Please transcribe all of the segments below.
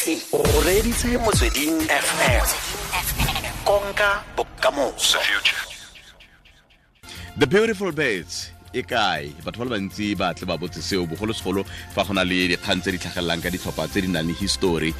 O reditse Motsweding FM. Konka bokamoso. The Beautiful Birds e kae? Batho ba le bantsi ba tle ba botse seo, bogolosegolo fa go na le dikgang tse di tlhagelelang ka ditlhopha tse di nang le histori.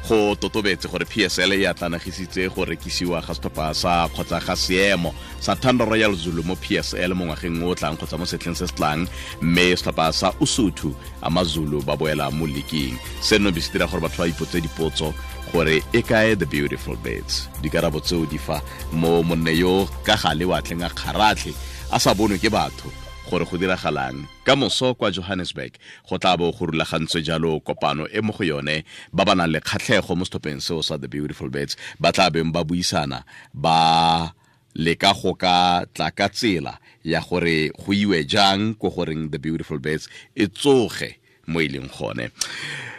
Go totobetse gore PSL e atlanagisitse go rekisiwa ga setlhopha sa kgotsa ga seemo sa Thanda Royal Zulu mo PSL mo ngwageng o tlang kgotsa mo setlheng se se tlang, mme setlhopha sa Usuthu Amazulu ba boela mo leaking. Seno be se dira gore batho ba ipotse dipotso gore e kae The Beautiful Birds. Dikarabo tseo di fa mo monne yo ka gale wa tleng a kgaratlhe a sa bonwe ke batho gore go diragalang. Ka moso kwa Johannesburg go tla bo go rulagantswe jalo kopano e mo go yone ba ba nang le kgatlhego mo setlhopheng seo sa The Beautiful Birds ba tla beng ba buisana, ba leka go ka tla ka tsela ya gore go iwe jang ko goreng The Beautiful Birds e tsoge mo e leng gone.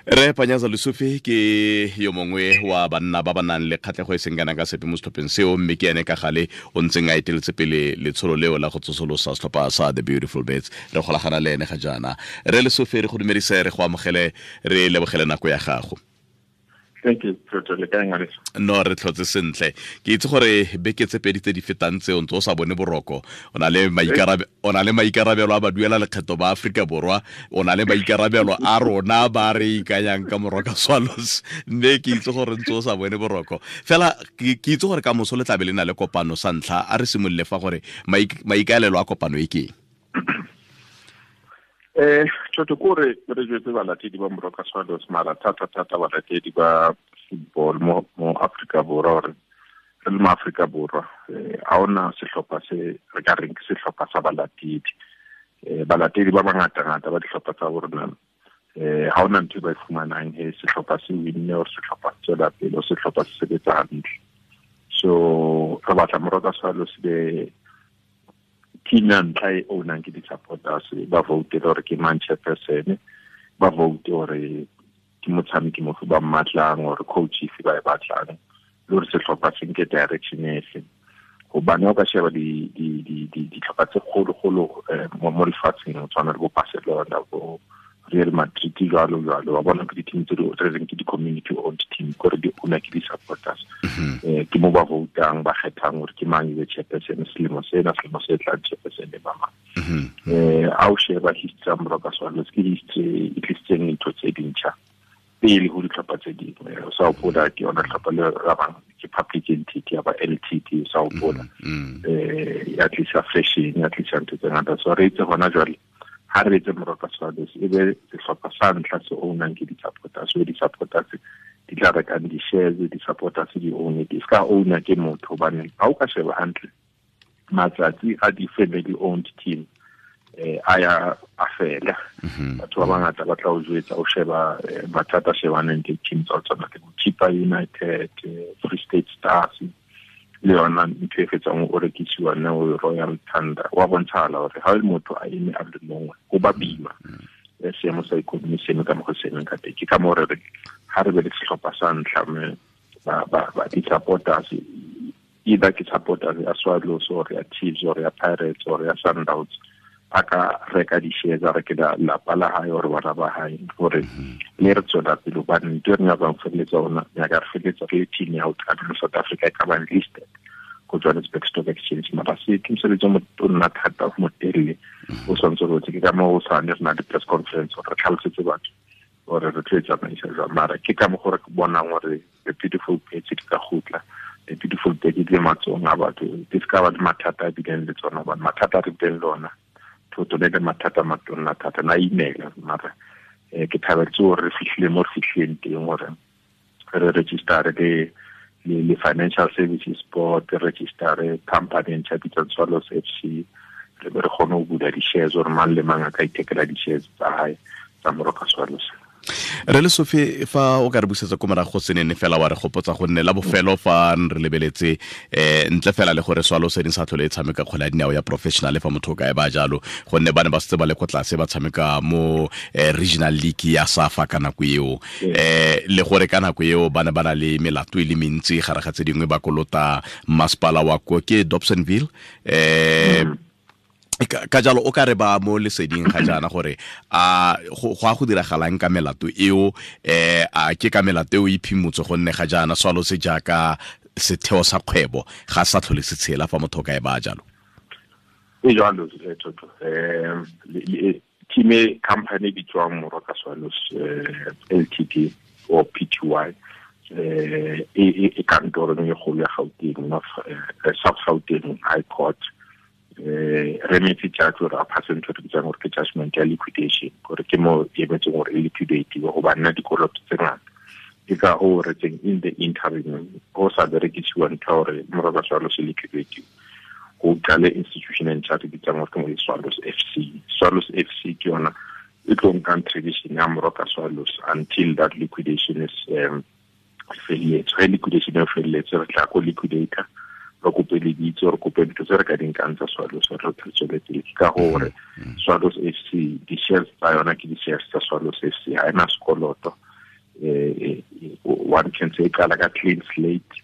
Re Panyaza Lesufi ke yo mongwe wa banna ba ba nang le kgatlhego e seng kana ka sepe mo setlhopheng seo, mme ke ene ka gale o ntseng a eteletse pele letsholo leo la go tsosolosa setlhopha sa The Beautiful Birds. Re golagana le ene ga jaana. Re Lesufi, re go dumedise, re go amogele, re lebogele nako ya gago. Thank you, Professor. Le kae, ngwaneso? No, re tlhotse sentle. Ke itse gore beke tse pedi tse di fetang tseo ntse o sa bone boroko. O na le maikarabelo a baduela lekgetho ba Aforika Borwa, o na le maikarabelo a rona ba re ikanyang ka Moroka Swallows, mme ke itse gore ntse o sa bone boroko. Fela ke itse gore ka moso le tlabe le na le kopano sa ntlha. A re simolole fa gore maikaelelo a kopano e ke eng? Thotho ko re jwetse balatedi ba Moroka Swallows, mara thata-thata balatedi ba football mo Afrika Borwa, gore re le mo Afrika Borwa, ha hona sehlopha se re ka reng ke sehlopha sa balatedi. Balatedi ba bangata-ngata ba dihlopha tsa bo rona, ha hona ntho e ba e fumanang he sehlopha se winne or sehlopha se tswela pele or sehlopha se sebetsa hantle. So re batla Moroka Swallows be team ya ntlha e ownang ke di-supporters, ba vote gore ke mang chairperson, ba vote gore ke motshameki mofe ba mmatlang or coach efe ba e batlang, le gore sehlopha se nke direction efe. Hobane ha o ka sheba dihlopha tse kgolo-kgolo, mo lefatsheng, ho tshwana le bo Barcelona, bo Real Madrid, jwalo jwalo, wa bona ke di-team tse di re reng ke di-community owned team, kore di owner ke di-supporters. Ke mo ba voutang, ba kgethang gore ke mang e be chairperson selemo sena, selemo se tlang chairperson e ba mang. Ha o sheba history ya Moroka Swallows, ke history e tlisitseng dintho tse dintjha pele ho dihlopha tse dingwe. O sa hopola ke yona hlopha le ba bang ke public entity ya ba LTT, o sa hopola. Ya tlisa fashion, ya tlisa ntho tse ngata. So re itse hona jwale ha re etse Moroka Swallows e be sehlopha sa ntlha se ownang ke di-supporters. So di-supporters di tla rekang di-shares, di-supporters di own it. E ska owner ke motho, hobane ha o ka sheba hantle matsatsi a di-family owned team, a ya a fela. Batho ba bangata ba tla o jwetsa, o sheba, mathata a shebaneng le team tsa ho tshwana le bo Chippa United, Free State Stars, le yona ntho e fetsang o rekisiwa ne o Royal Thunder. Wa bontshala hore ha motho a eme a le mongwe, ho ba boima. Seemo sa economy se eme ka mokgwa o se emeng ka teng. Ke ka moo re re ha re be le sehlopha sa ntlha, mme ba di-supporters, either ke supporters ya Swallows or ya Chiefs or ya Pirates or ya Sundowns, a ka reka di-shares, a reke lapa la hae or bana ba hae, hore le re tswela pele. Hobane ntho e re nyakang ho feleletsa ona, nyaka re feleletsa re le team ya ho qala mo South Africa e ka bang listed ko Johannesburg Stock Exchange. Mara se ke mosebetsi o motona thata, o motelele, o tshwanetse ho ke ka moo o sa ne re na le press conference hore re tlhalosetse batho hore re tlo e tsamaisa jwang. Mara ke ka mokgwa re bonang hore The Beautiful Birds di ka kgutla. The Beautiful Birds di le matsohong a batho, di se ka ba le mathata a bileng le tsona, hobane mathata a re bileng le ona, thotho le mathata a matona thata, na imela. Mara, ke thabetse hore re fihlile mo re fihlileng teng, hore re register le Financial Services Board, re register company e ntjha e bitswang Swallows FC, re be re kgone ho bula di-shares hore mang le mang a ka ithekela di-shares tsa hae tsa Moroka Swallows. Re Lesufi, fa o ka re busetsa ko morago senene fela wa re gopotsa gonne la bofelo fa re lebeletse, ntle fela le gore Swallows e sa tlhole e tshameka kgwele ya dinao ya professional fa motho o ka e ba jalo, gonne ba ne ba setse ba le ko tlase ba tshameka mo, regional league ya SAFA ka nako eo. Le gore ka nako eo ba ne ba na le melato e le mentsi gare ga tse dingwe ba kolota masepala wa ko ke Dobsonville. Ka jalo o ka re ba mo leseding ga jaana gore a go a go diragalang ka melato eo, a ke ka melato eo e phimotse gonne ga jaana Swallows jaaka setheo sa kgwebo ga sa tlhole se tshela fa motho ka e ba jalo. E jalo Toto, team e company bitswang Moroka Swallows Ltd or PTY, e kantorong e kgolo ya Gauteng, South Gauteng High Court, re metse judge gore a pass ntho re bitsang gore ke judgment ya liquidation, gore ke mo e emetseng gore e liquidate go ba nna dikoloto tse ngata. Ke ka ho re tseng in the interim go sa berekisiwa ntho gore Moroka Swallows e liquidate, go qale institution e ntšha re bitsang gore ke mo Swallows FC. Swallows FC ke yona e tlo nkang tradition ya Moroka Swallows until that liquidation is felletse. Ge liquidation e felletse, re tla ko liquidator, re kope lebitso, re kope dintho tse re ka di nkang tsa Swallows, re tswele pele. Ke ka gore Swallows FC, di-shares tsa yona ke di-shares tsa Swallows FC, ha ena sekoloto. One can say qala ka clean slate.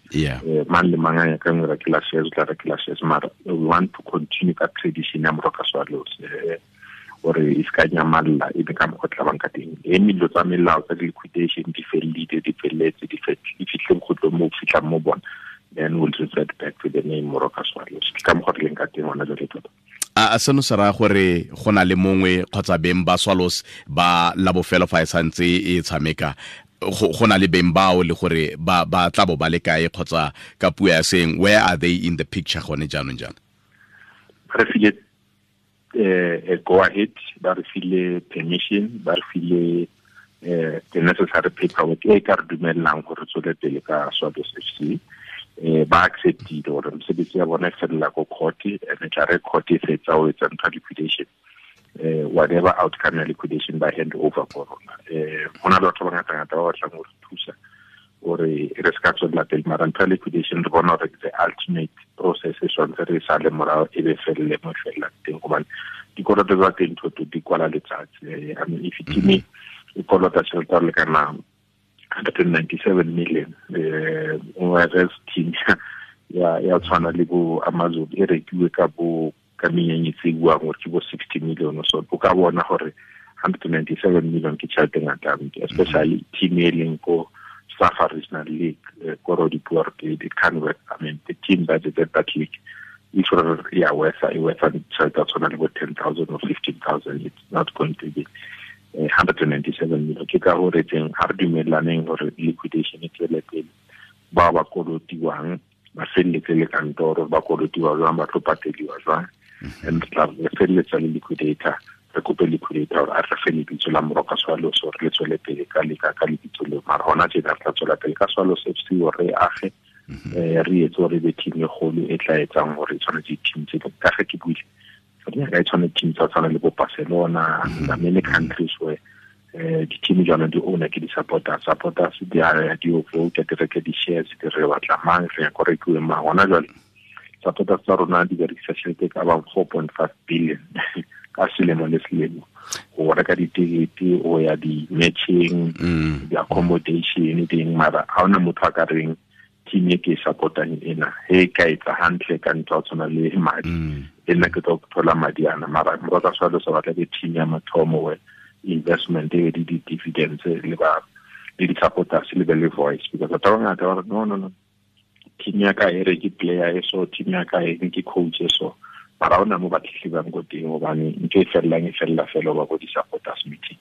Mang le mang a nyakang ho rekela shares, o tla rekela shares, mara we want to continue ka tradition ya Moroka Swallows, gore e se ka nyamalla e be ka mokgwa tla bang ka teng. E dilo tsa melao tsa liquidation di fellile, di felletse, di fitlhe bokgutlong mo fitlhang mo bona, then we'll revert back to the name Moroka Swallows. Ke ka mokgwa re leng ka teng hona jwale tota. A seno se raya gore go na le mongwe kgotsa beng ba Swallows ba la bofelo fa e santse e tshameka, go na le beng bao le gore ba tla bo ba le kae, kgotsa ka puo ya seng, where are they in the picture gone jaanong jaana? Re file go ahead, ba re file permission, ba re file the necessary paperwork e ka re dumellang gore tswele pele ka Swallows FC. Ba acceptile gore mosebetsi ya bona e felela ko court, and tla re court e fetsa ho etsa ntho liquidation, whatever outcome ya liquidation ba hand over ko rona. Ho na le batho ba ngata-ngata ba batlang ho re thusa gore re se ka tswella pele, mara ntho ya liquidation re bona gore the ultimate process e tshwanetse re sale morao e be felle mo e fellang teng, gobane dikoloto tsa teng Toto di kwala letsatsi. I mean, if team e kolota tjhelete ya lekana 197 million, whereas team ya tshwana le bo Amazon e rekiwe ka bo ka menyenyetsi e buang gore ke bo 60 million or so. O ka bona gore 197 million ke tjhelete e ngata, especially team e leng ko Safa Regional League, ko it can't work. I mean, the team that is at that league, if ya worth tjhelete ya tshwana le bo 10,000 or 15,000, it's not going to be 197 million. Ke ka hore teng ha re dumellaneng hore liquidation e tswele pele, ba ba kolotiwang ba felletse le kantoro, ba kolotiwa jwang, ba tlo pateliwa jwang, and tla re felletsa le liquidator, re kope liquidator hore a re fe lebitso la Moroka Swallows hore le tswele pele ka ka lebitso leo. Mara hona tjena re tla tswela pele ka Swallows FC hore re age, re etse hore e be team e kgolo e tla etsang hore e tshwane di-team tse ding. Ka ge ke buile, re tshwane team tsa tshwana le bo Barcelona, the many countries where di-team jalo di owner ke di-supporters, supporters di a di vote, di reke di-shares, di re batla mang, re ya ko rekiwe mang. Hona jwale supporters tsa rona di berekisa tjhelete e ka bang 4.5 billion ka selemo le selemo go reka ditekete, go ya di-matching, di-accommodation ding. Mara ha hona motho a ka reng team e ke e support-ang ena he ka etsa hantle ka ntho ya tshwana le madi, e nna ke tlo thola madi ana. Mara Moroka Swallows ba batla ke team ya mathomo where investment e di dividends le ba le di-supporters le be le voice, because batho ba bangata ba re no team ya ka e re ke player e so, team ya ka e ke coach e so, mara hona mo ba tletlebang ko teng hobane ntho e fellang e fella fela ba ko di-supporters meeting.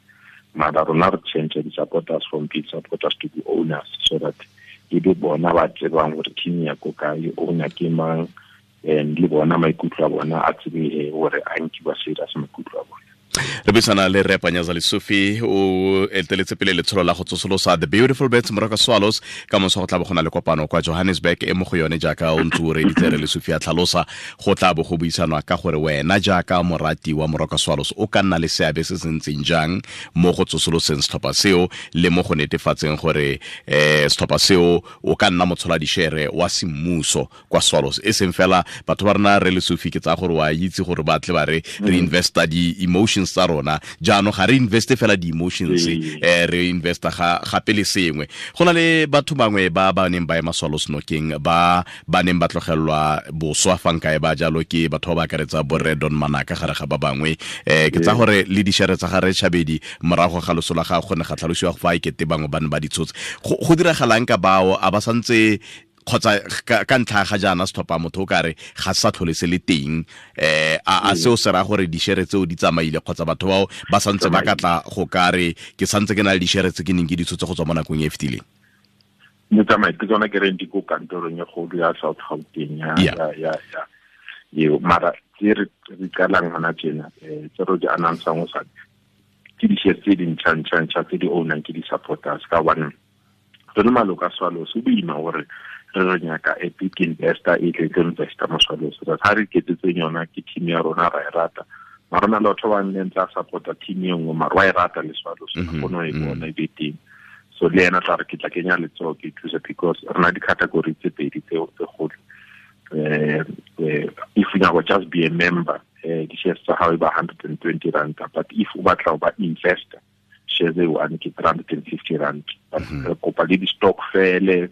Mara rona re change di-supporters from being supporters to be owners, so that e be bona ba tsebang gore team ya ko kae, owner ke mang, and le bona maikutlo a bona a tsebe hore a nkiwa serious maikutlo a bona. Re buisana le Rre Panyaza Lesufi, o eteletse pele letsholo la go tsosolosa The Beautiful Birds Moroka Swallows. Ka moso go tla bo go na le kopano kwa Johannesburg e mo go yone jaaka o ntse o reditse Rre Lesufi a tlhalosa, go tla bo go buisanwa ka gore wena jaaka morati wa Moroka Swallows o ka nna le seabe se se ntseng jang mo go tsosoloseng setlhopha seo le mo go netefatseng gore setlhopha seo o ka nna motshola dishere wa semmuso kwa Swallows. E seng fela batho ba rena Rre Lesufi, ke tsaya gore wa itse gore ba tle ba re re investa di-emotions tsa rona jaanong ga re investe fela di-emotions re investa gape le sengwe. Go na le batho bangwe ba ba neng ba ema Swallows nokeng, ba ba neng ba tlogelwa boswa fa nkae ba jalo, ke batho ba ba akaretsa borre Don Manaka gare ga ba bangwe. Ke tsa gore le dišere tsa gare Chabedi morago ga loso la gagwe go ne ga tlhalosiwa fa e kete bangwe ba ne ba di tshotse. Go diragalang ka bao a ba santse kgotsa ka ntlha ga jaana setlhopha motho o kare ga sa tlhole se le teng, a seo se raya gore dišere tseo di tsamaile kgotsa batho bao ba santse ba ka tla go kare ke santse ke na le dišere tse ke neng ke di tshotse go tswa mo nakong e e fetileng? Di tsamaile, ke tsona ke reng di ko kantorong e kgolo ya South Gauteng ya eo, mara tse re qalang hona tjena, tse re di announce-ang ho sa ke di-shares tse dintjha-ntjha-ntjha tse di ownang ke di-supporters, ka hobane re le maloko a Swallows ho boima hore re nyaka a big investor e tle tlo investa mo Swallows. Ha re iketsetseng yona ke team ya rona, ra e rata, mara rona le batho ba neng tla support-a team e nngwe, mara wa e rata le Swallows, a kgone ho e bona e be teng. So le yena tla re ke tla kenya letsoho ke thuse, because re na di-category tse pedi tse kgolo. If you nyaka just be a member, di-shares tsa hao e ba 120 rand, but if o batla ho ba investor, shares e one ke 350 rand. But re kopa le di-stokvel,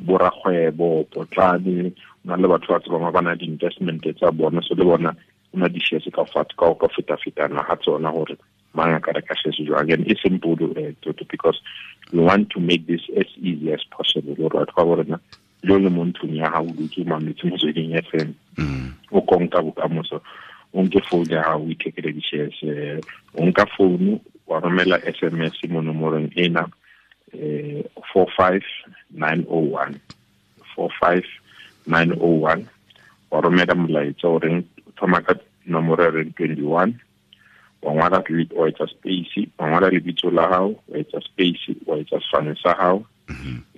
borakgwebo, potlane, o na le batho ba tsebang ba na di-investment tsa bona, so le bona o na di-shares ka ka feta-fetana ha tsona hore mang a ka reka shares jwang. And e simple, because we want to make this as easy as possible hore batho ba bo rona le le mo ntlong ya hao o dutse o mametse Motsweding FM, o konka bokamoso, o nke phone ya hao o ithekele di-shares, o nka phone wa romela SMS mo nomorong ena, 45901, 45901, wa romela molaetsa o reng thoma ka nomoro e reng 21, wa ngwala wa etsa space, wa ngwala lebitso la hao, wa etsa space, wa etsa sefane sa hao,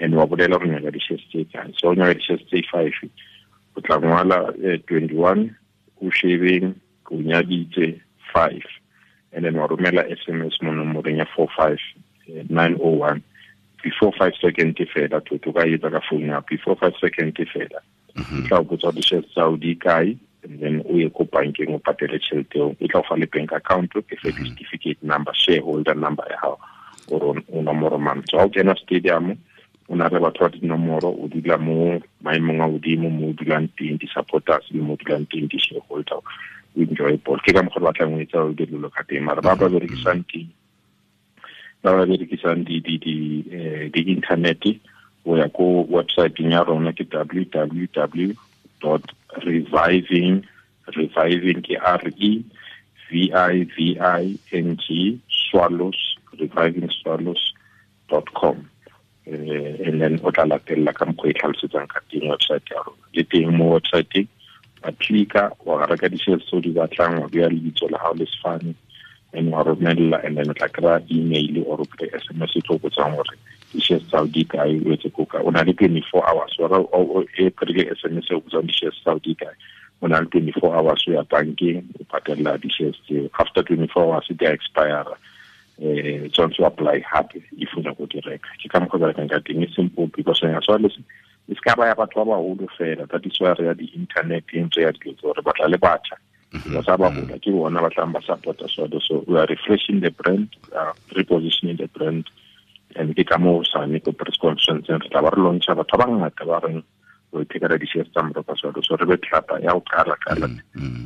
and wa bolela hore o nyaka di-shares tse kae. So o nyaka di-shares tse 5, o tla ngwala 21, o shebeng, o nyaditse 5, and then wa romela SMS mo nomorong ya 45901. Before 5 seconds fela, to ka etsa ka phone ya before 5 seconds fela, e tla o botsa di-shares tsa hao di kae, and then o ye ko bankeng o patele tjhelete eo, e tla o fa le bank account, e fe certificate number, shareholder number ya hao, gore o nomoro mang. So ha o kena stadium, o na le batho ba dinomoro, o dula mo maemong a hodimo mo o dulang teng di-supporters le mo o dulang teng di-shareholder, o enjoy ball. Ke ka mokgwa re batlang ho etsa o dilo ka teng, mara ba ba berekisang teng, ba ba berekisang di-internet, o ya ko website ya rona ke www dot reviving, reviving ke R E V I V I N G Swallows, revivingswallows.com, and then o tla latella ka mokgwa e tlhalosetsang ka teng website ya rona. Le teng mo website wa click-a, wa reka di-shares tseo di batlang, wa beha lebitso la hao le sefane, and wa romella, and then o tla kry-a email or o kry SMS e tlo botsang hore di-shares tsa hao di kae, o etse ko kae. O na le 24 hours, o e kry-ile SMS e o botsang di-shares tsa hao di kae, o na le 24 hours o ya bankeng o patella di-shares tseo. After 24 hours di a expire, tshwanetse o apply hape if o nyaka ho di reka. Ke ka mokgwa o berekang ka teng, e simple because ya Swallows e se ka ba ya batho ba baholo fela. That is why re ya di-internet-eng, re ya dilo tse, re batla le batjha. Ba sa ba hola, ke bona ba tlang ba support-a Swallows. So we are refreshing the brand, repositioning the brand, and ke ka moo hosane ko press conference re tla ba re launch-a batho ba bangata ba reng o ithekela di-shares tsa Moroka Swallows. So re be tlhapa ya ho qala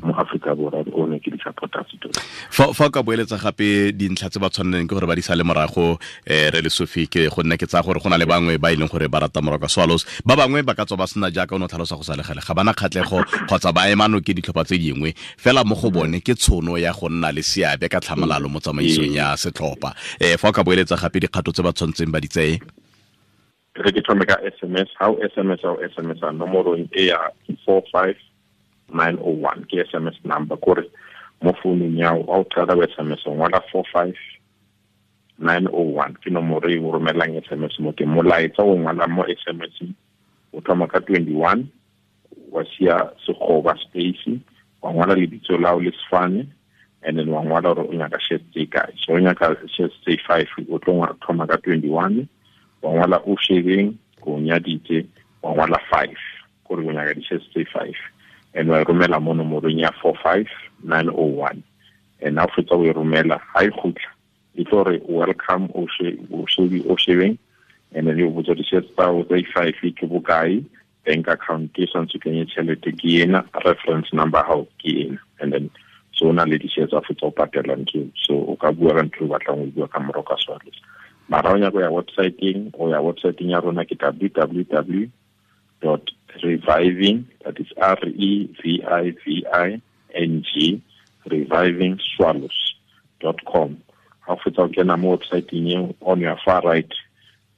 mo Afrika Borwa o ne ke di-supporters tota. Fa o ka boeletsa gape dintlha tse ba tshwaneleng ke gore ba di sale morago, re le Sophie, ke go nna ke tsaya gore go na le bangwe ba e leng gore ba rata Moroka Swallows, ba bangwe ba ka tswa ba sena jaaka o ne o tlhalosa go sa le gale, ga bana kgatlhego kgotsa ba ema nokeng ditlhopha tse dingwe, fela mo go bone ke tshono ya go nna le seabe ka tlhamalalo mo tsamaisong ya setlhopha. Fa o ka boeletsa gape dikgato tse ba tshwanetseng ba di tseye. Re ke thome ka SMS, ha o SMS, ha o SMS a nomorong e ya 45901, ke SMS number, kore mo founung ya hao, ha o qala o SMS, o ngola 45901, ke nomoro e o romellang SMS mo teng. Molaetsa o ngwalang mo SMS o thoma ka 21, wa siya sekgoba space, wa ngwala lebitso la hao le sefane, and then wa ngwala hore o nyaka shares tse kae. So o nyaka shares tse 5, o tlo thoma ka 21, wa ngwala o shebeng, o nyaditse, wa ngwala 5, kore o nyaka di-shares tse 5, and wa romela mo nomorong ya 45901. And ha fetsa o e romela, ha e khutla e tlo re welcome o shebeng, and then o botsa di-shares tsa o tsa i-five ke bokae, bank account ke santse kenye tšhelete ke ena, reference number hao ke ena, and then so na le di-shares tsa fetsa o patela ntho. So o ka bua ka ntho o batlang o bua ka Moroka Swallows. Mara o nyaka ya website-eng, o ya website-eng ya rona ke www dot reviving, that is R-E-V-I-V-I-N-G, revivingswallows.com. Ha o fetsa o kena mo website-eng eo, on your far right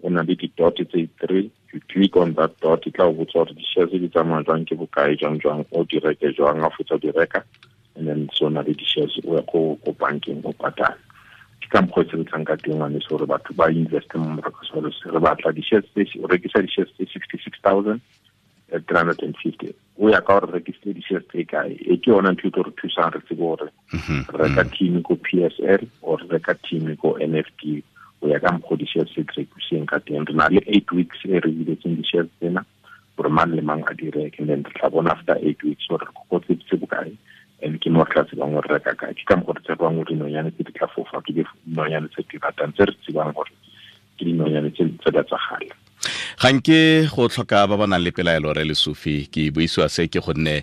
o na le di-dot tse three, you click on that dot, e tla o botsa gore di-shares di tsamaya jwang, ke bokae, jwang jwang, o di reke jwang. Ha o fetsa o di reka, and then so na le di-shares o ya ko bankeng o patala. Ke ka mokgwa o sebetsang ka teng ngwaneso, gore batho ba investe mo Moroka Swallows. Re batla di-shares tse, o rekisa di-shares tse 66,350. O ya ka gore rekisitse di-shares tse kae. E ke yona ntho e tlo re thusang re tsebe gore re reka team ko PSL or re reka team ko NFD, o ya ka mokgwa di-shares tse di rekiseng ka teng. Re na le 8 weeks e re biletseng di-shares tsena gore mang le mang a di reke, and then re tla bona after 8 weeks gore re kokotseditse bokae, and ke mo re tla tsebang gore reka kae. Ke ka mokgwa re tsebang gore dinonyane tse di tla fofa ke dinonyane tse di ratang, tse re tsebang gore ke dinonyane tse di tsa gale. Ga nke go tlhoka ba ba nang le pelaelo re Lesufi, ke buisiwa se ke gonne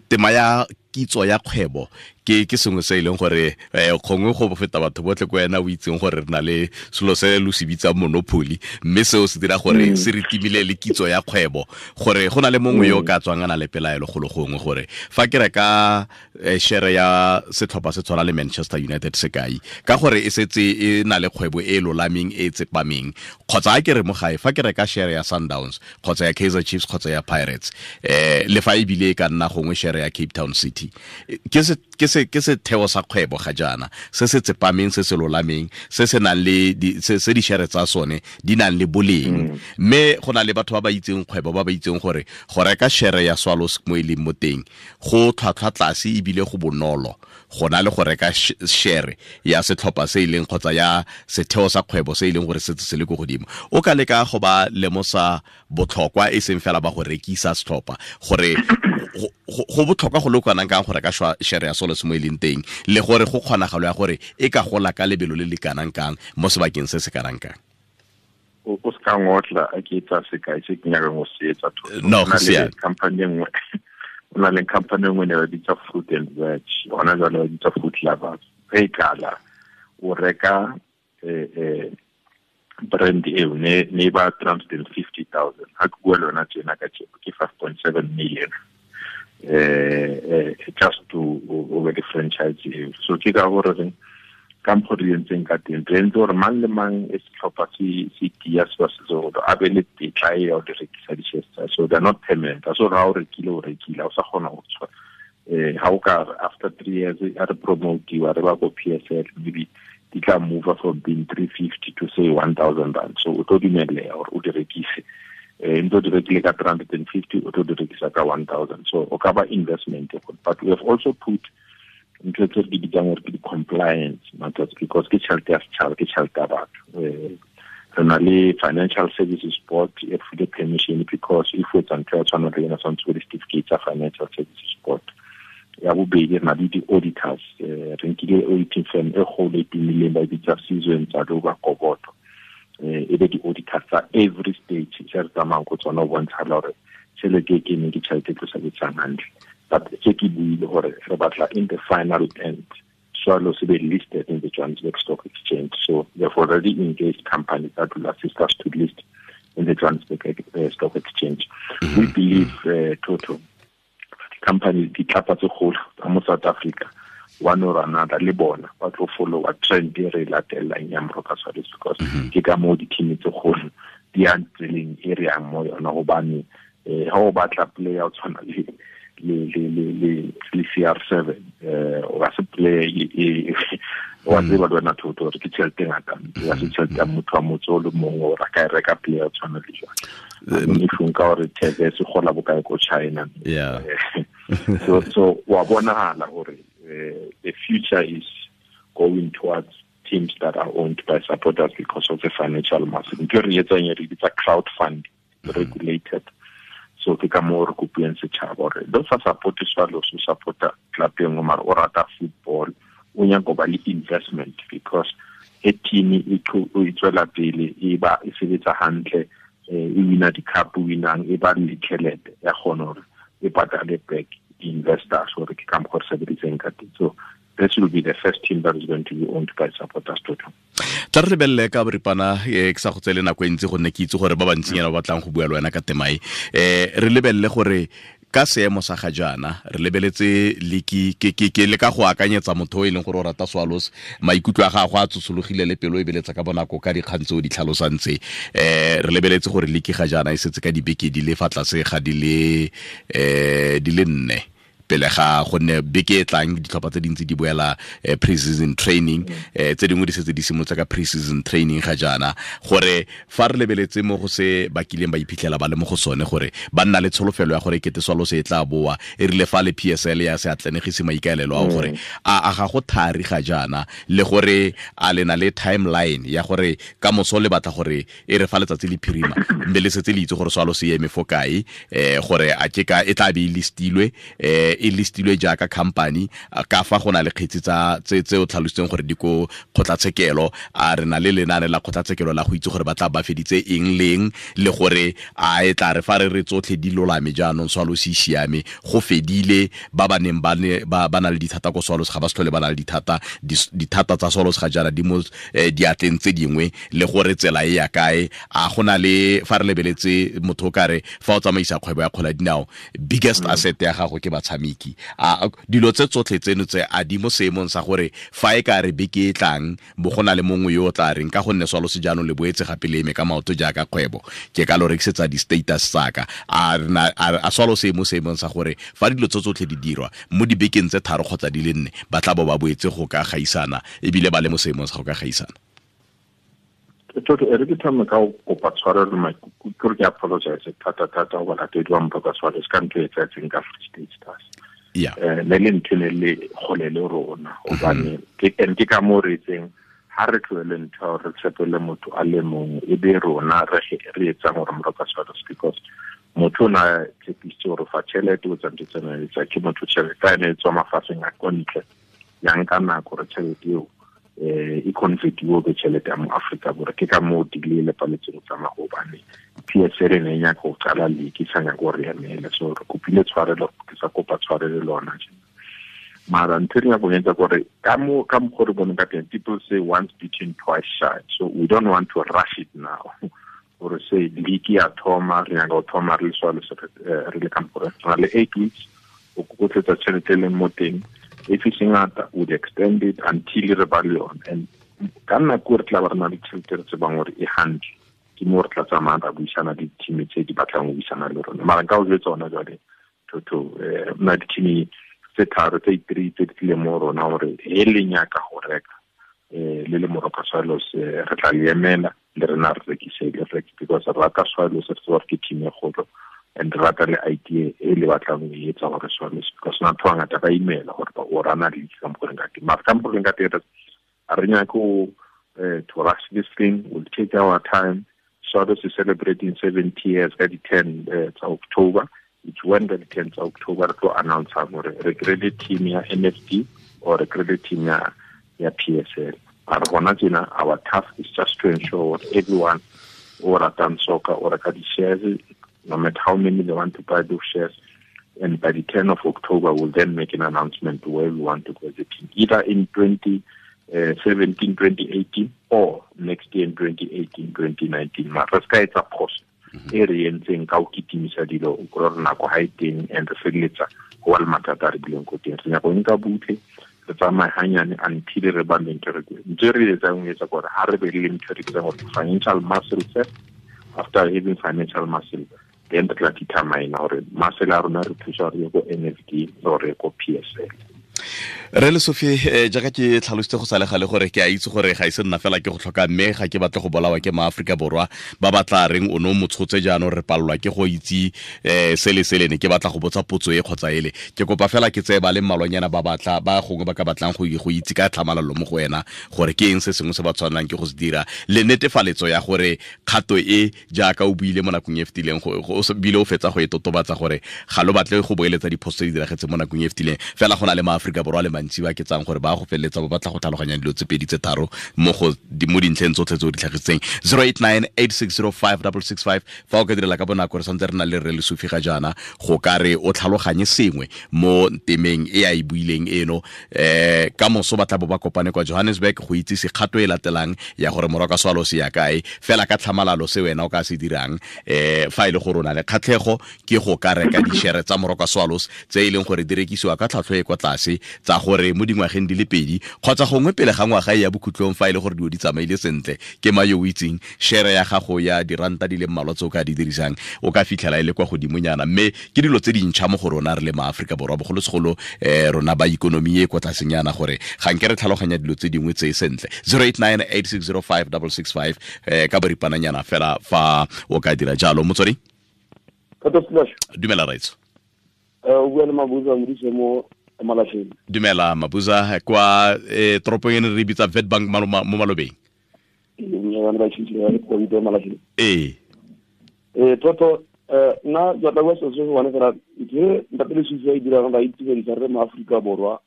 tema ya kitso ya kgwebo ke sengwe se e leng gore gongwe go feta batho botlhe ko wena o itseng gore re na le selo se lo se bitsang monopoly, mme seo se dira gore se re timile le kitso ya kgwebo, gore go na le mongwe yo o ka tswang a na le pelaelo golo gongwe gore fa ke reka share ya setlhopha se tshwana le Manchester United sekai, ka gore e setse e na le kgwebo e lolameng e tsepameng, kgotsa a ke re mo gae fa ke reka share ya Sundowns kgotsa ya Kaizer Chiefs kgotsa ya Pirates, le fa ebile e ka nna gongwe share ya Cape Town City, ke setheo sa kgwebo ga jaana se se tsepameng, se se lolameng, se se nang le se di-share tsa sone di nang le boleng. Mme go na le batho ba ba itseng kgwebo, ba ba itseng gore go reka share ya Swallows mo e leng mo teng go tlhwatlhwa tlase ebile go bonolo go na le go reka share ya setlhopha se e leng kgotsa ya setheo sa kgwebo se e leng gore setse se le ko godimo. O ka leka go ba lemosa botlhokwa e seng fela ba go rekisa setlhopha, gore go botlhokwa go le kanang kang go reka share ya Swallows mo e leng teng, le gore go kgonagalo ya gore e ka gola ka lebelo le le kanang kang mo sebakeng se se kanang kang. O se ka ngotla a ke etsa sekai se ke nyakang go se etsa. No, go siame. Company e nngwe, o na le company e nngwe ne ba bitsa Fruit and Veg, hona jwale ba bitsa Fruit Lovers. Ge e kala o reka brand eo ne ba 350,000, ha ke bua le wena tjena ka tjeko ke 5.7 million, just to over the franchise eo. So ke ka gore re ka mokgwa re entseng ka teng, re entse gore mang le mang e setlhopha se tia se ba se tsoro a be le tetla e ya ho di rekisa di-shares tsa. So they're not permanent. So ha o rekile, o rekile, ha o sa kgona ho tswa. Ha o ka after 3 years a re promotiwa re ba ko PSL, maybe di tla move from being 350 to say 1,000 rand. So o tlo dumelleha hore o di rekise. Ntse o di rekile ka 350, o tlo di rekisa ka 1,000. So o ka ba investment. But we have also put ntho tse re di bitsang gore ke di-compliance matters, because ke tjhelete ya setjhaba, ke tjhelete ya batho. Re na le Financial Services Board e re file permission, because if o etsa ntho ya tshwana le ena, tshwanetse o di-certificate tsa Financial Services Board. Ya bobedi, re na le di-auditors. Re nkile auditing firm e kgolo e tumileng, ba e bitsa Sizwe Ntsaluba Gobodo, e be di-auditors tsa every stage se re tsamayang ko tsona, ho bontshala hore tjhelete e keneng ke tjhelete e tlo sebetsang hantle. But se ke buile hore re batla in the final end Swallows be listed in the Johannesburg Stock Exchange. So we have already engaged companies that will assist us to list in the Johannesburg Stock Exchange. We believe, Toto, companies ditlapa tse kgolo tsa mo South Africa, one or another le bona ba tlo follow a trend e re latelang ya Moroka Swallows, because ke ka moo di-team tse kgolo di yang tseleng e re yang mo yona. Hobane ha o batla player o tshwana le CR7, o ka se player e wa tseba le wena Toto hore ke tjhelete e ngata, ya se tjhelete ya motho wa motse o le mong o ka e reka player o tshwana le jwang. If o nka hore Tevez e kgola bokae ko China. So wa bonahala hore the future is going towards teams that are owned by supporters because of the financial muscle. Ntho e re etsang e re bitsa crowdfunding, regulated. So ke ka moo re kopileng setšhaba gore le sa support-e Swallows, o support-a club e nngwe, mara o rata football, o nyaka go ba le investment, because e team e tswela pele, e ba e sebetsa hantle, e wina di-cup, winang, e ba le tšhelete ya kgona gore e patale back di-investors, gore ke ka mokgwa re sebeditseng ka teng. So this will be the first team that is going to be owned by supporters total. Tla re lebelele ka boripana, ke sa go tsele nako e ntsi gonne ke itse gore ba bantsinyana ba batlang go bua le wena ka temae. Re lebelele gore ka seemo sa ga jaana re lebeletse liki ke le ka go akanyetsa motho o e leng gore o rata Swallows, maikutlo a gagwe a tsosologile le pelo e beletsa ka bonako ka dikgang tse o di tlhalosang tse. Re lebeletse gore liki ga jaana e setse ka dibeke di le fa tlase ga di le 4 pele ga gonne beke e tlang ditlhopha tse dintsi di boela pre-season training, tse dingwe di setse di simolotse ka pre-season training ga jaana, gore fa re lebeletse mo go se ba kileng ba iphitlhela ba le mo go sone, gore ba nna le tsholofelo ya gore kete Swallows e tla boa e rile fa le PSL ya se atlenegise maikaelelo a gore a ga go thari ga jaana, le gore a le na le timeline ya gore ka moso le batla gore e re fa letsatsi le phirima mme le setse le itse gore Swallows e eme fo kae, gore a ke ka e tla be e listilwe, e listilwe jaaka company, ka fa go na le kgetsi tsa tse o tlhalositseng gore di ko kgotlatshekelo, a re na le lenane la kgotlatshekelo la go itse gore ba tla ba feditse eng leng, le gore a e tla re fa re re tsotlhe di lolame jaanong Swallows e siame, go fedile, ba ba neng ba na le dithata ko Swallows ga ba se tlhole ba na le dithata, dithata tsa Swallows ga jaana di mo diatleng tse dingwe, le gore tsela e ya kae. A go na le fa re lebeletse motho o kare fa o tsamaisa kgwebo ya kgwele ya dinao, biggest asset ya gago ke batshameki, a dilo tse tsotlhe tseno tse a di mo seemong sa gore fa e ka re beke e tlang bo go na le mongwe yo o tla reng ka gonne Swallows jaanong le boetse gape le eme ka maoto jaaka kgwebo, ke ka lo rekisetsa di-status tsaka, a Swallows e mo seemong sa gore fa dilo tse tsotlhe di dirwa mo dibekeng tse 3 kgotsa di le 4 ba tla bo ba boetse go ka gaisana, ebile ba le mo seemong sa go ka gaisana. Toto, e re ke thome ka go kopa tshwarelo, maikutlo ke apologize thata thata go balatedi ba Moroka Swallows ka ntho e etsahetseng ka Free State Stars. Ne le ntho ne le kgole le rona, hobane ke ka moo re itseng ha re tlohele ntho re tshepele motho a le mongwe, e be rona re etsang gore Moroka Swallows, because motho o na tshepisitse gore fa tšhelete o tsa ntho tsena etsa ke motho tšhelete a ne e tswa mafatsheng a ko ntle, ya nka nako gore tšhelete eo e convertiwe be tšhelete ya mo Afrika Borwa. Ke ka moo delay le paletseng go tsamaya, gobane PSL e ne e nyaka go qala league, e sa nyaka gore emele. So re kopile tshwarelo, ke sa kopa tshwarelo le lona tjena. Mara ntho e re nyaka go etsa kore ka mokgwa re boneng ka teng, people say once bitten twice shy, so we don't want to rush it now. Gore say league ya thoma, re nyaka go thoma re le Swallows, re le ka mokgwa re na le 8 weeks o kokotletsa tšhelete e leng mo teng. If it's ngata, would extend it until re ba le yona. And ka nako re tla ba re na le tšhelete re tsebang gore e hantle, ke mo re tla tsamayang ra buisana le di-team tse di batlang go buisana le rona. Mara nka o jwetsa hona jwale, Toto, na di-team tse 3 tse 3 tse di tlileng mo rona gore he le nyaka go reka, le le Moroka Swallows, re tla le emela le rena re rekise le reke, because re rata Swallows, re tseba gore ke team e kgolo, and re rata le idea e le batlang go e etsa gore Swallows, because batho ba bangata ba imela gore ba o rana league ka mokgwa re ka teng. Mara ka mokgwa re ka teng, a re nyake go to rush this thing, we'll take our time. Swallows is celebrating 70 years ka di 10 tsa October. It's when the 10 tsa October re tlo announce gore re kry-ile team ya NFD or re kry-ile team ya PSL. Mara hona tjena, our task is just to ensure that everyone o ratang soccer o reka di-shares, no matter how many they want to buy those shares. And by the 10th of October, we'll then make an announcement where we want to go as a team, either in 2017, 2018, or next year in 2018, 2019. Mara ska etsa phoso e re entseng ka ho kitimisa dilo, o kry-a gore nako ha e teng, and re feleletsa ho ba le mathata a re bileng ko teng. Re nyaka ho nka butle, re tsamaye hanyane until re ba le ntho e re ntho e re etsang ho etsa kore ha re be le ntho e re bitsang gore financial muscle first. After having financial muscle, then re tla determine hore muscle ya rona re thusa hore ye ko NFD or ye ko PSL. Re le Sophie, jaaka ke tlhalositse go sale gale gore ke a itse gore ga ise nna fela ke go tlhoka, mme ga ke batle go bolawa ke maAforika Borwa ba ba tla reng o ne o motshotse jaanong re palelwa ke go itse sele sele ne ke batla go botsa potso e kgotsa ele. Ke kopa fela ke tseye ba le mmalwanyana ba batla ba gongwe ba ka batlang go itse ka tlhamalalo mo go wena gore ke eng se sengwe se ba tshwanelang ke go se dira, le netefaletso ya gore kgato e jaaka o buile mo nakong e fetileng, o bile o fetsa go e totobatsa gore ga lo batle go boeletsa diphoso tse di diragetseng mo nakong e fetileng, fela go na le maAforika Borwa le mantsi ba ke tsang gore ba go feleletsa ba batla go tlhaloganya dilo tse pedi tse tharo mo dintlheng tsotlhe tse o di tlhagisitseng. 0898605665 fa o ka direla ka bonako, re santse re na le Rre Lesufi ga jaana go ka re o tlhaloganye sengwe mo temeng e a e buileng eno. Ka moso ba tla bo ba kopane kwa Johannesburg go itsise kgato e latelang ya gore Moroka Swallows ya kae, fela ka tlhamalalo se wena o ka se dirang fa e le gore o na le kgatlhego ke go ka reka dishere tsa Moroka Swallows tse e leng gore di rekisiwa ka tlhwatlhwa e kwa tlase, tsa gore mo dingwageng di le pedi kgotsa gongwe pele ga ngwaga e ya bokhutlong, fa e le gore dilo di tsamaile sentle, ke ma yo o itseng shere ya gago ya diranta di le mmalwa tse o ka di dirisang o ka fitlhela e le kwa godimonyana. Mme ke dilo tse dintšha mo go rona re le maAforika Borwa, bogolosegolo rona ba ikonomi e kwa tlasenyana, gore ga nke re tlhaloganya dilo tse dingwe tse sentle. 0898605665 ka boripananyana fela fa o ka dira jalo. Motswedi, dumela raitso. O bua le Mabuza Modise mo Malahleng. Dumela Mabuza, kwa toropong e ne re bitsa Witbank mo malobeng. Ee. Toto nna ke batla go bua selo se se one fela, ntho ntate Lesufi a e dirang ba itumedisa re mo Aforika Borwa,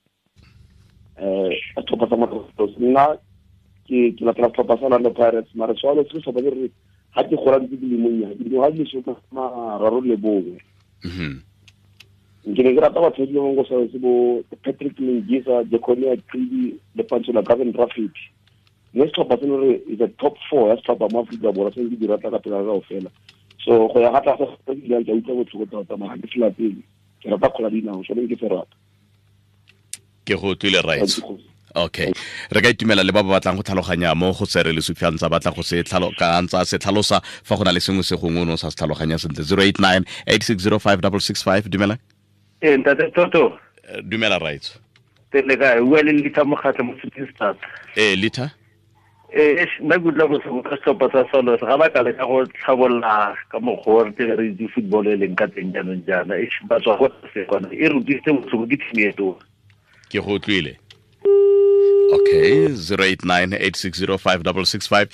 setlhopha sa Moroka. Nna ke latela setlhopha sa Orlando Pirates, mare Swallows ke setlhopha se re ga ke gola ntse ke le monnye, ke dingwaga di le 31. Ke ne ke rata batho ba bangwe go sa se bo Patrick Lengisa, Jeconia Qidi le Pantsula Gavin Rafferty. Mme setlhopha seno re is a top 4 ya setlhopha mo Aforika Borwa, se ke di rata ka pela kaofela. So go ya ga tlase ga ke ke utlwa botlhoko tota, mara ke se latele, ke rata kgola dinao, sone ke se rata. Ke go utlwile right. Okay, re ka itumela le ba ba batlang go tlhaloganya mo go se re Lesufi a ntse a batla go se ntse a se tlhalosa fa go na le sengwe se gongwe o ne o sa se tlhaloganya sentle. 0898605665 dumela. Ntate Toto. Dumela right. Tele kae, bua le Litha Mokgatlho mo Shooting Stars. Litha. Nna ke utlwa botlhoko ka setlhopha sa Swallows, ga ba ka leka go tlhabolola ka mokgwa o re tle re itse football e leng ka teng jaanong jaana, ba tswa go tlase kwana, e re utlwisitse botlhoko ke team e tona. Ke go utlwile. Okay, 0898605665.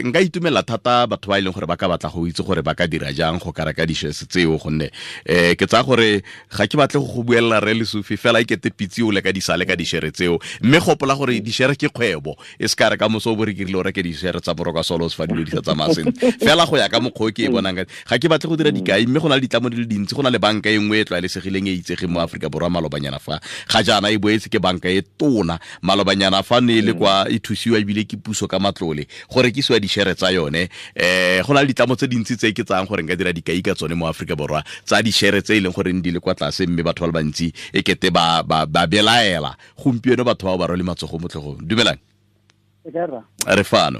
Nka itumela thata batho ba e leng gore ba ka batla go itse gore ba ka dira jang go ka reka dishes tseo, gonne ke tsaya gore ga ke batle go buelela Rre Lesufi fela e kete pitse o le ka disale ka dishere tseo, mme gopola gore dishere ke kgwebo, e se ka re ka moso o bo re kirile o reke dishere tsa Moroka Swallows fa dilo di sa tsamaya sentle. Fela go ya ka mokgwa o ke e bonang ka ga ke batle go dira dikai, mme go na le ditlamo di le dintsi, go na le banka e nngwe e tlwaelesegileng e itsegeng mo Aforika Borwa malobanyana fa ga jaana e boetse ke banka e tona malobanyana fa ne le kwa e thusiwa ebile ke puso ka matlole go rekisiwa dishere tsa yone. Go na le ditlamo tse dintsi tse ke tsayang gore nka dira dikai ka tsone mo Aforika Borwa tsa dishere tse e leng gore di le kwa tlase, mme batho ba le bantsi e kete ba belaela gompieno, batho bao ba rwele matsogo mo tlhogong. Dumelang. Re fano.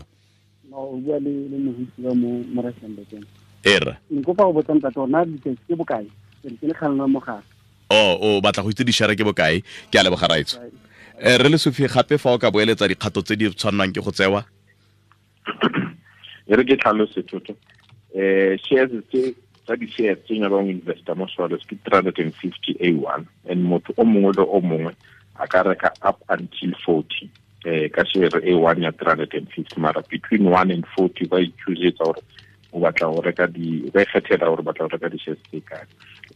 O bua le mohutsi wa mo Rustenburg. Era. Nkopa go botsa ntate gore na diketso ke bokae? Ke le kgalema mogala. O batla go itse dishere ke bokae? Ke a leboga raitso. Re Lesufi, gape fa o ka boeletsa dikgato tse di tshwannang ke go tsewa. E re ke tlhalose Toto. Shares tse tsa di-shares tse nyakang go investa mo Swallows ke 350 A1, and motho o mongwe le o mongwe a ka reka up until 40 ka share A1 ya 350, mara between 1 and 40 ba ichoosetsa gore o batla go reka di, ba ikgethela gore o batla go reka di-shares tse kae.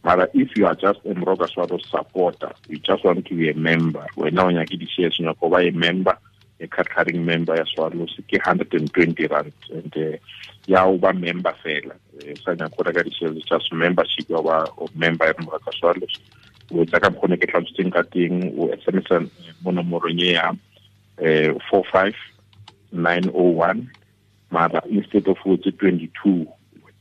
Mara if you are just a Moroka Swallows supporter, you just want to be a member, wena o nyake di-shares, o nyaka go ba a member, a card-carrying member ya Swallows, ke 120 rand, and ya o ba member fela, sa nyaka go reka di-shares, just membership ya ba member ya Moroka Swallows. O etsa ka mokgwa o ne ke tlhalositseng ka teng, o SMS mo nomorong e ya 45901, mara instead of o etse 22,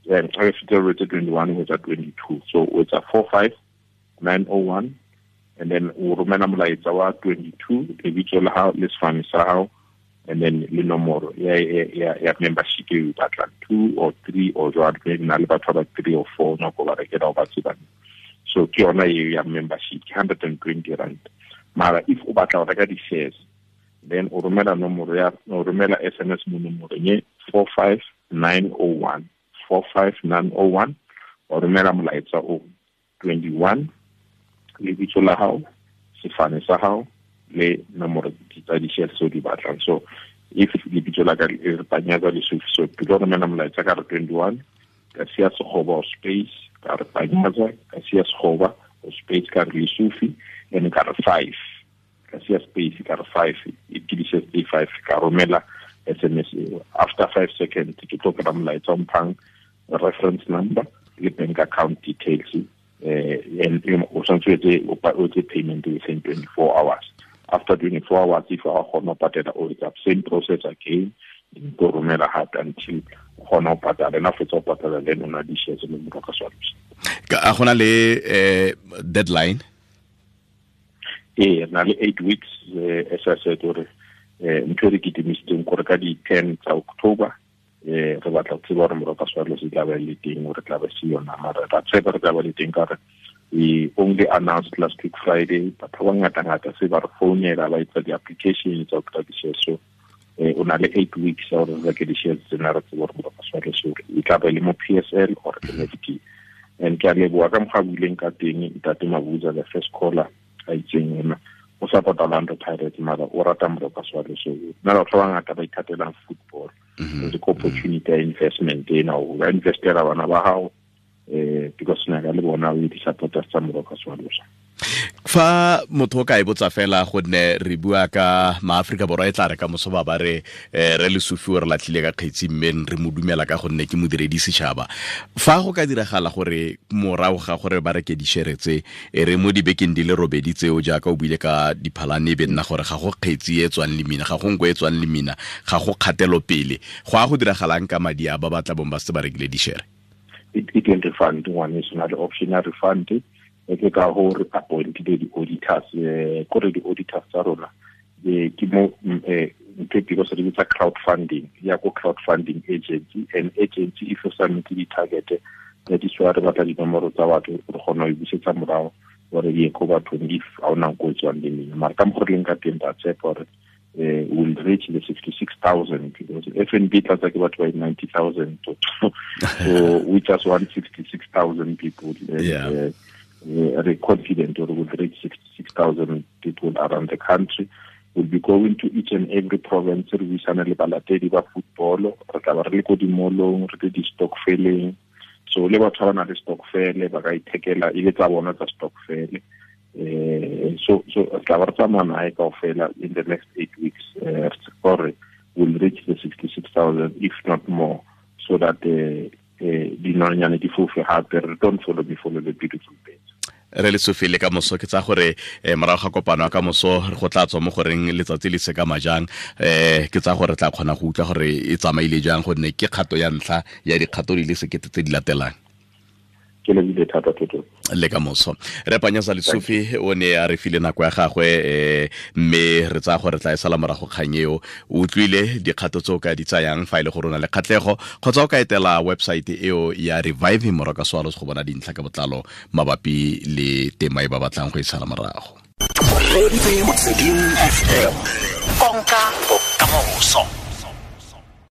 instead of o etse 21, o etsa 22. So o etsa 45901, and then o romela molaetsa wa 22, lebitso la hao le sefane sa hao, and then le nomoro ya membership e o batlang, 2 or 3 or jwalo, maybe na le batho ba 3 or 4 nako ba rekela o ba tsebang. So ke yona e ya membership, 120 rand. Mara if o batla go reka di-shares, then o romela nomoro ya, o romela SMS mo nomorong e 45901, 45901, o romela molaetsa o 21, lebitso la hao, sefane sa hao le nomoro tsa di-shares tse o di batlang. So if lebitso la ka le re Panyaza Lesufi, so ke tlo romela molaetsa ka re 21, ka sia sekgoba o space, ka re Panyaza, ka sia sekgoba o space, ka re Lesufi, and ka re 5, ka sia space, ka re 5, e ke di-shares tse 5, ka romela SMS eo. After 5 seconds ke tlo kry-a molaetsa o mphang reference number le bank account details, and o tshwanetse o etse payment within 24 hours. After 24 hours, if o kgona ho patela, o etsa same process again, o romela hape until o kgona ho patala. And after o patala, then o na di-shares le Moroka Swallows. A gona le deadline? Ee, re na le 8 weeks, as I said, gore ntho e re kitimisitseng gore ka di-10 tsa October, re batla go tseba gore Moroka Swallows e tla ba le teng, gore tla ba se yona. Mara ra tshepa re tla ba le teng ka gore we only announced last week Friday. Batho ba ngata-ngata se ba re founela ba etsa di-application tsa go kry-a di-shares. So o na le 8 weeks ya gore re reke di-shares tsena, re tsebe gore Moroka Swallows e tla ba le mo PSL or NFT. And ke a leboha ka mokgwa a buileng ka teng Ntate Mabuza, the first caller, a itseng ena o support Orlando Pirates, mara o rata Moroka Swallows. So nna batho ba bangata ba ithatelang football, ke opportunity ya investment ena, o ka investela bana ba hao, because nna ka le bona o di-supporters tsa Moroka Swallows. Fa motho o ka e botsa fela, gonne re bua ka maAforika Borwa, e tla re ka moso ba ba re re Lesufi o re latlhile ka kgetsi, mme re mo dumela ka gonne ke modiredi setšhaba. Fa go ka diragala gore morago ga gore ba reke dishere tse, e re mo dibekeng di le robedi tseo jaaka o buile ka diphalane, e be nna gore ga go kgetsi e tswang lemina, ga go nko e tswang lemina, ga go kgatelopele, go a go diragalang ka madi a ba ba tla bong ba setse ba rekile dishere? E teng refund, ngwaneso, na le option ya refund. E ke ka ho re appointile di-auditors, kore di-auditors tsa rona, ke mo ntho e because re bitsa crowdfunding, ya ko crowdfunding agency, and agency if o submit di-target, that is why re batla dinomoro tsa batho, re kgona ho e busetsa morao gore di ye ko bathong if ha ona nko e tswang lemina. Mara ka mokgwa re leng ka teng, ra tshepa gore will reach the 66,000, because FNB tlatsa ke batho ba 90,000, so we just want 66,000 people. And, we're confident we will reach 66,000 people around the country. We'll be going to each and every province, re buisana le balatedi ba football, re tla ba re le ko dimolong, re le di-stokveleng. So le batho ba ba nang le stokvele ba ka ithekela e le tsa bona tsa stokvele. So re tla ba re tsamaya nae kaofela in the next 8 weeks, gore we'll reach the 66,000, if not more, so that dinonyane di fofe hape. Re don't follow me, follow the beautiful birds. Re Lesufi, le ka moso ke tsa gore morago ga kopano ya ka moso go tla tswa mo goreng letsatsi le se ka majang, ke tsa gore tla kgona go utlwa gore e tsamaile jang, gonne ke kgato ya ntlha ya dikgato di le sekete tse di latelang. Ke lebile thata toto. Le ka moso re Panyaza Lesufi o ne a re file nako ya gagwe, mme re tsaya gore tla e sala morago kgang eo. O utlwile dikgato tse o ka di tsayang fa e le gore o na le kgatlhego, kgotsa o ka etela website eo ya Reviving Moroka Swallows go bona dintlha ka botlalo mabapi le tema e ba batlang go e sala morago. Konka bokamoso.